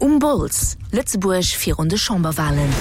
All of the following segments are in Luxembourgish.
Um Bols, Lëtzebuerg virun de Chamberwalen.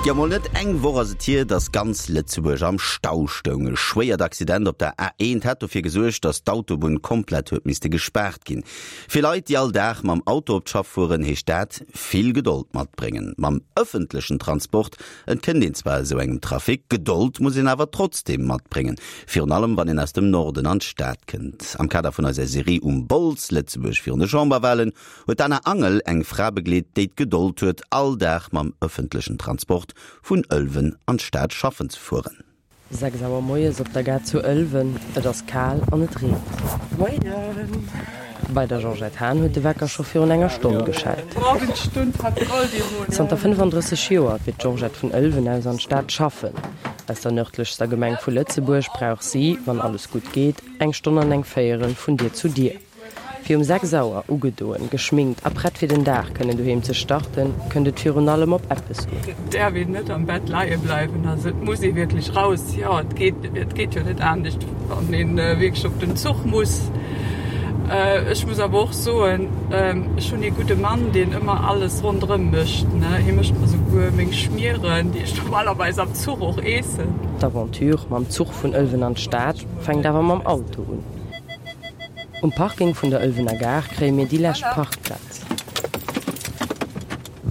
Jo, mol net eng Woch ass et hier, dass ganz Lëtzebuerg am Stau stoung. E schwéiert Accident op der A1 hat dofir gesuergt, dass d'Autobunn komplett huet misste gespaart ginn. Fir Leit, déi all Dag mam Auto op d'Schaff fueren, heescht dat, vill Gedold matbréngen. Mam ëffentlechen Transport Entkënnt een zwar esou engem Trafic, Gedold muss een awer trotzdeem matbréngen, virun allem wann een aus dem Norden an d'Stad kënnt. Am Kader vun eiser Serie Um Bols, Lëtzebuerg virun de Chamberwahlen, huet d'Anna Angel eng Fra begleet, déi d'Gedold huet, all Dag mam ëffentlechen Transport vun Ëlwen an d'Stad schaffen ze fueren. 6 Auer moies op der Gare zu Ëlwen, et ass kal an et reent. Moien! Bei der Georgette Hahn huet de Wecker scho virun enger Stonn geschellt. Zanter 35 Joer fiert d'Georgette vun Ëlwen aus an d'Stad schaffen. Aus der nërdlechster Gemeng vu Lëtzebuerg brauch si, wann alles gutt geet, eng Stonn an eng Véierel vun Dier zu Dier. Fir um 6 Auer, ugedoen, geschminkt a prett fir den Dag kënnen doheem ze starten, kënnt et virun allem op eppes un. Et däerf een net am Bett leie bleiwen, also et muss ee wierklech raus. Jo, et geet, et geet jo net anescht, wann ee wierklech op den Zuch muss. Ech muss awer och soen, ech hunn ee gudde Mann, deen ëmmer alles ronderëm mécht, ne. Hie mécht mer souguer meng Schmieren, déi ech normalerweis am Zuch och eessen. D'Aventure mam Zuch vun Ëlwen an d'Stad fänkt awer mam Auto un. Um Parking vun der Ëlwener Gare kréie mir déi lescht Parkplaz.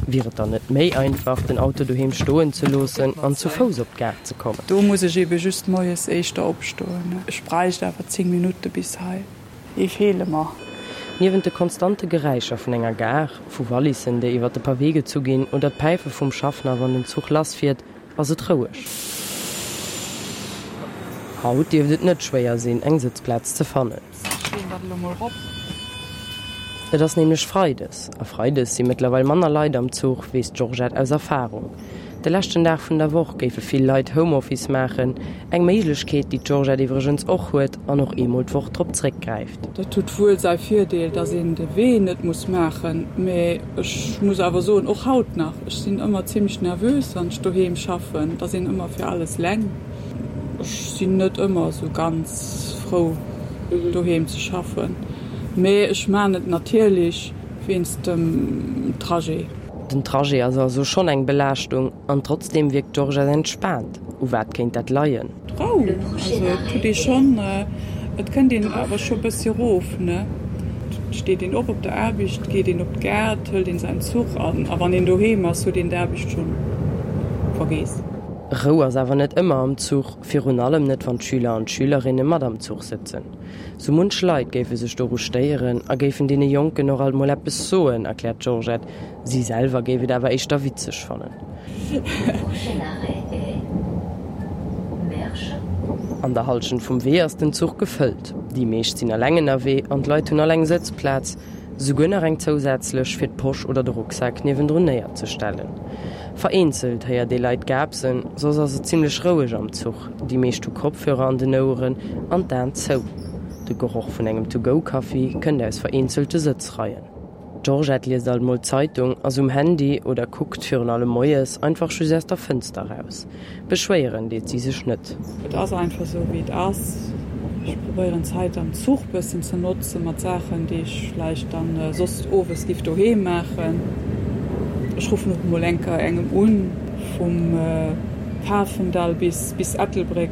Wier et dann net méi einfach, den Auto doheem stoen ze loossen an zu Fouss op d'Gare ze kommen? Do muss ech ebe just moies éischter opstoen. Ech bräicht awer 10 Minutte bis hei. Déi feele mer. Niewent de konstante Geräischer vun enger Gare, vu Wallissen, déi iwwer de Pavé gezu ginn, oder d'Päife vum Schaffner, wann den Zuch lassfiert, ass et roueg. Haut dierft et net schwéier sinn, eng Sëtzplaz ze fannen. Et ass nämlech Freides, a Freides si mëttlerweil manner Leit am Zuch, weess d'Georgette aus Erfarung. De leschten Dag vun der Woch géife vill Leit Homeoffice maachen, eng Méiglechkeet, déi d'Georgette iwwregens och huet an och eemol d'Woch drop zréckgräift. Dat huet wuel säi Virdeel, dass een de Wee net muss maachen, mee ech muss awer soen, och haut nach, Ech sinn ëmmer zimlech nervös wann ech doheem schaffen, et ass een ëmmer fir alles leng. Ech sinn net ëmmer esou ganz frou doheem ze schaffen, mee ech maan et natierlech wéinst dem Trajet. Den Trajet ass also schonn eng Belaaschtung an trotzdeem wierkt d'Georgette entspaant. U wat kéint dat leien? D'Rou, also et huet ee schonn, et kënnt een awer scho bëssi erof, ne? Et steet een op op der Aarbecht, geet een op d'Gare, hëlt een säin Zuch an a wann een doheem ass, huet een d'Aarbecht schonn vergeess. Rou ass awer net ëmmer am Zuch, virun allem net wann d'Schüler an d'Schülerinne mat am Zuch sëtzen. Sou munch Leit géife sech doru stéieren a géifen deene Jonken och alt mol eppes soen, erkläert d'Georgette. Si selwer géif et awer éischter witzeg fannen. An der Hallschent vum Wee ass den Zuch gefëllt. Déi meescht sinn eleng ënnerwee an d'Leit hunn all eng Sëtzplaz, souguer nach eng zousätzlech, fir d'Posch oder de Rucksak niewendrun néierzestellen. Vereenzelt héiert ee Leit gaapsen, soss ass et zimmlech roueg am Zuch. Déi meescht hu Kopfhörer an den Oueren an d'Aen zou. De Geroch vun engem To-Go-Kaffi kënnt aus vereenzelte Sëtzreien. D'Georgette liest alt mol d'Zeitung, ass um Handy oder kuckt, virun allem moies, einfach just aus der Fënster raus. Beschwéieren deet si sech net. Et ass einfach esou wéi et ass. Ech probéieren d'Zäit am Zuch bëssen ze notze mat Saachen déi ech vläicht dann soss owes giff doheem maachen. Ech ruffen och mol eng Kéier engem un. Vum Pafendall bis bis Ettelbréck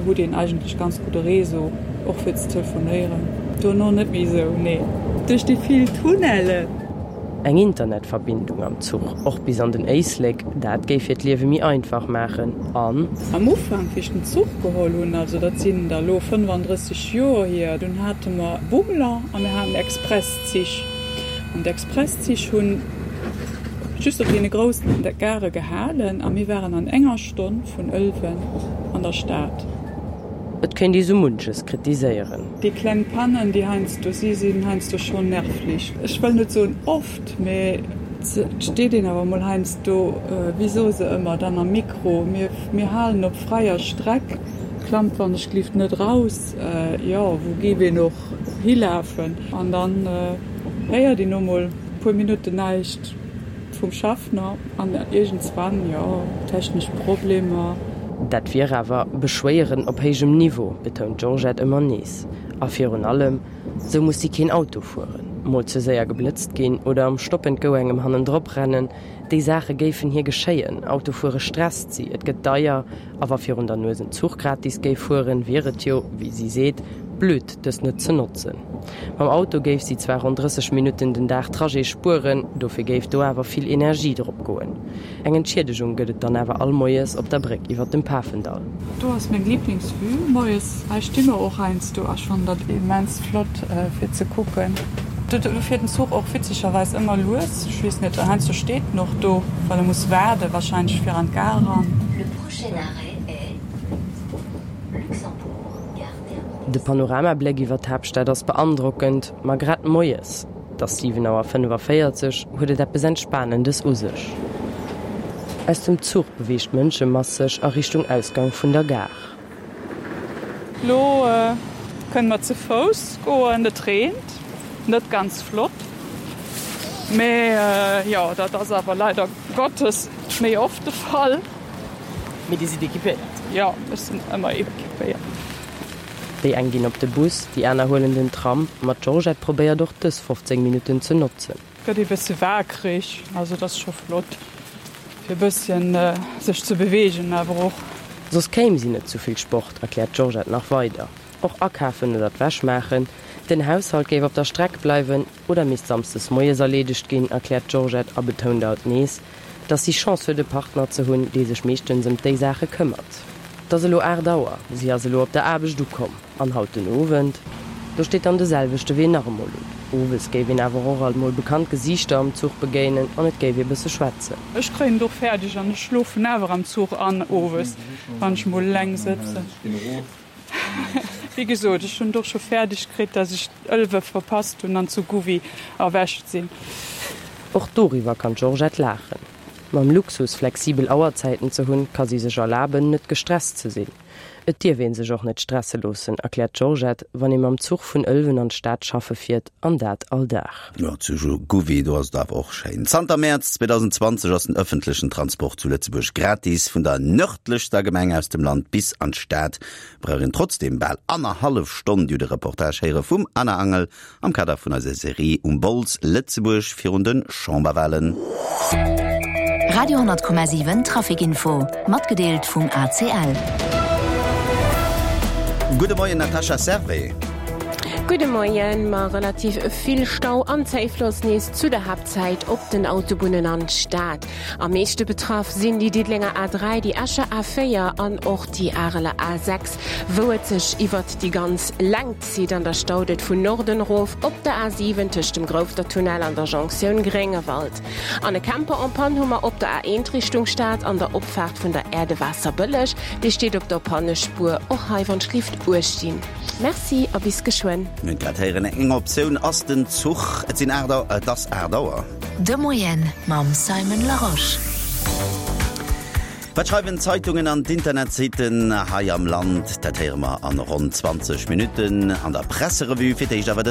hutt een eigentlech ganz gudde Réseau, och fir ze telefonéieren. Dono net méi esou, nee, duerch déi vill Tunnelen. Eng Internetverbindung am Zuch, och bis an den Éislek, dat géif hiert Liewe méi einfach maachen an. Am Ufank, wéi ech den Zuch geholl hunn, also dat sinn der elo 35 Joer hier, dunn hate mer Bummler a mir haten Expresszich. An d'Expresszich hunn just op deene groussen Gare gehalen a mir waren an enger Stonn vun Ëlwen an der Stad. Et kéint ee sou munches kritiséieren. Déi kleng Pannen, déi heiansdo si, sinn heiansdo schonn nervlich. Ech wëll net soen oft, mee et steet een awer mol heiansdo, wéi soe se ëmmer dann am Mikro, mir, mir halen op fräier Streck, klammt wann ech glift net raus, jo, wou géif een och hilafen? An dann héiert een no mol e puer Minutten näischt. Vum Schaffner an iergendswann, jo, technesch Problemer. Dat wier awer Beschwéieren op héijem Niveau, betount d'Georgette ëmmer nees. A virun allem, sou muss si keen Auto fueren, mol ze séier geblëtzt ginn oder am Stop and Go engem hannendrop rennen. Déi Saache géifen hir geschéien. Autofuere stresst si, et gëtt deier a wa virun der Nues en Zuch gratis géif fueren, wier et jo, wéi si seet, blöd, dës net ze notzen. Mam Auto géif si zwar ronn 30 Minutten den Dag Trajet spueren, dofir géif do awer vill Energie drop goen. Eng Entschiedegung gëtt et dann awer all Moies op der Bréck iwwer dem Pafendall. Do ass meng Lieblingsvue moies. Hei sti mer och heiansdo a ech fannen dat immens flott fir ze kucken. Do fiert den Zuch och witzegerweis ëmmer lues. Ech weess net, heiansdo steet en och do, well e muss waarde wahrscheinlech fir an d'Gare eran. Le prochain arrêt est Luxembourg, gare Terminus. De Panoramabléck iwwer d'Haaptstad ass beandrockend, ma grad moies, et ass 7 Auer 45, huet et eppes Entspanendes u sech. Aus dem Zuch beweegt d'Mënschemass sech a Richtung Ausgang vun der Gare. Lo kënne mer ze Fouss goen. Et reent, net ganz flott, mee jo, dat ass awer leider Gottes méi oft de Fall. Mee Dir sidd equipéiert? Jo, ech sinn ëmmer equipéiert. Déi eng ginn op de Bus, déi aner huelen den Tram, ma d'Georgette probéiert och dës 15 Minutten ze notzen. Gëtt ee bësse waakreg, also et ass scho flott fir e bësschen sech ze beweegen awer och. Soss kéim si net zu vill Sport, erkläert d'Georgette nach weider. Och akafen oder d'Wäsch maachen, den Haushalt géif op der Streck bleiwen oder misst samsdes moies erleedegt ginn, erkläert d'Georgette a betount alt nees, dass si Chance huet e Partner ze hunn, dee sech meeschtens ëm déi Saache këmmert. Et ass elo 8 Auer, si ass elo op der Aarbecht ukomm an haut den Owend, do steet dann de selwechte Wee nach emol un. Owes géif een awer och alt mol bekannt Gesiichter am Zuch begéinen an et géif ee bësse schwätzen. Ech kréien et och fäerdeg an ech schlofen awer am Zuch an owes, wann ech mol eleng sëtzen. Wéi gesot, ech hunn et och scho fäerdeg kritt, dass ech Ëlwe verpasst hunn an zu Gouvy erwächt sinn. Och doriwwer kann d'Georgette laachen. Mam Luxus, flexibel Auerzäiten ze hunn, ka si sech erlaben, net gestresst ze sinn. Et dierf ee sech och net stresse loossen, erkläert d'Georgette, wann ee mam Zuch vun Ëlwen an d'Stad schaffe fiert, an dat all Dag. Jo, zu Gouvy, do ass et awer och schéin. Zanter Mäerz 2020 ass den ëffentlechen Transport zu Lëtzebuerg gratis. Vun der nërdlechster Gemeng aus dem Land bis an d'Stad brauch een trotzdeem bal annerhallef Stonn. Dir hutt e Reportage héiere vum Anna Angel Am Kader vun eiser Serie Um Bols, Lëtzebuerg virun de Chamberwahlen. Radio 10,7 Traficinfo, matgedeelt vum ACL. Gudde Moien Natascha Servais. Gudde Moien. Ma relativ vill Stau an Zéifloss nees zu der Haaptzäit op den Autobunnen an d'Stad. Am meeschte betraff sinn déi Diddelenger A3, déi Escher A4 an och déi Areler A6, wou et sech iwwert déi ganz Längt zitt. An da staut et vun Norden erof op der A7 tëscht dem Groufftertunnel an der Jonktioun Gréngewald. An e Camper en panne hu mer op der A1 Richtung Stad an der Opfaart vun der Aire de Waasserbëlleg. Dee steet op der Pannespuer. Och hei wann d'Schlift uecht ginn. Merci a bis geschwënn. Mir hunn grad héieren, eng Optioun ass den Zuch. Et sinn 8 Auer, et ass 8 Auer. De Moien mam Simon Larosche. Wat schreiwen d'Zeitungen an d'Internetsitten hei am Land? Dat héiere mer an ronn 20 Minutten an der Presserevue. Fir d'éischt awer den.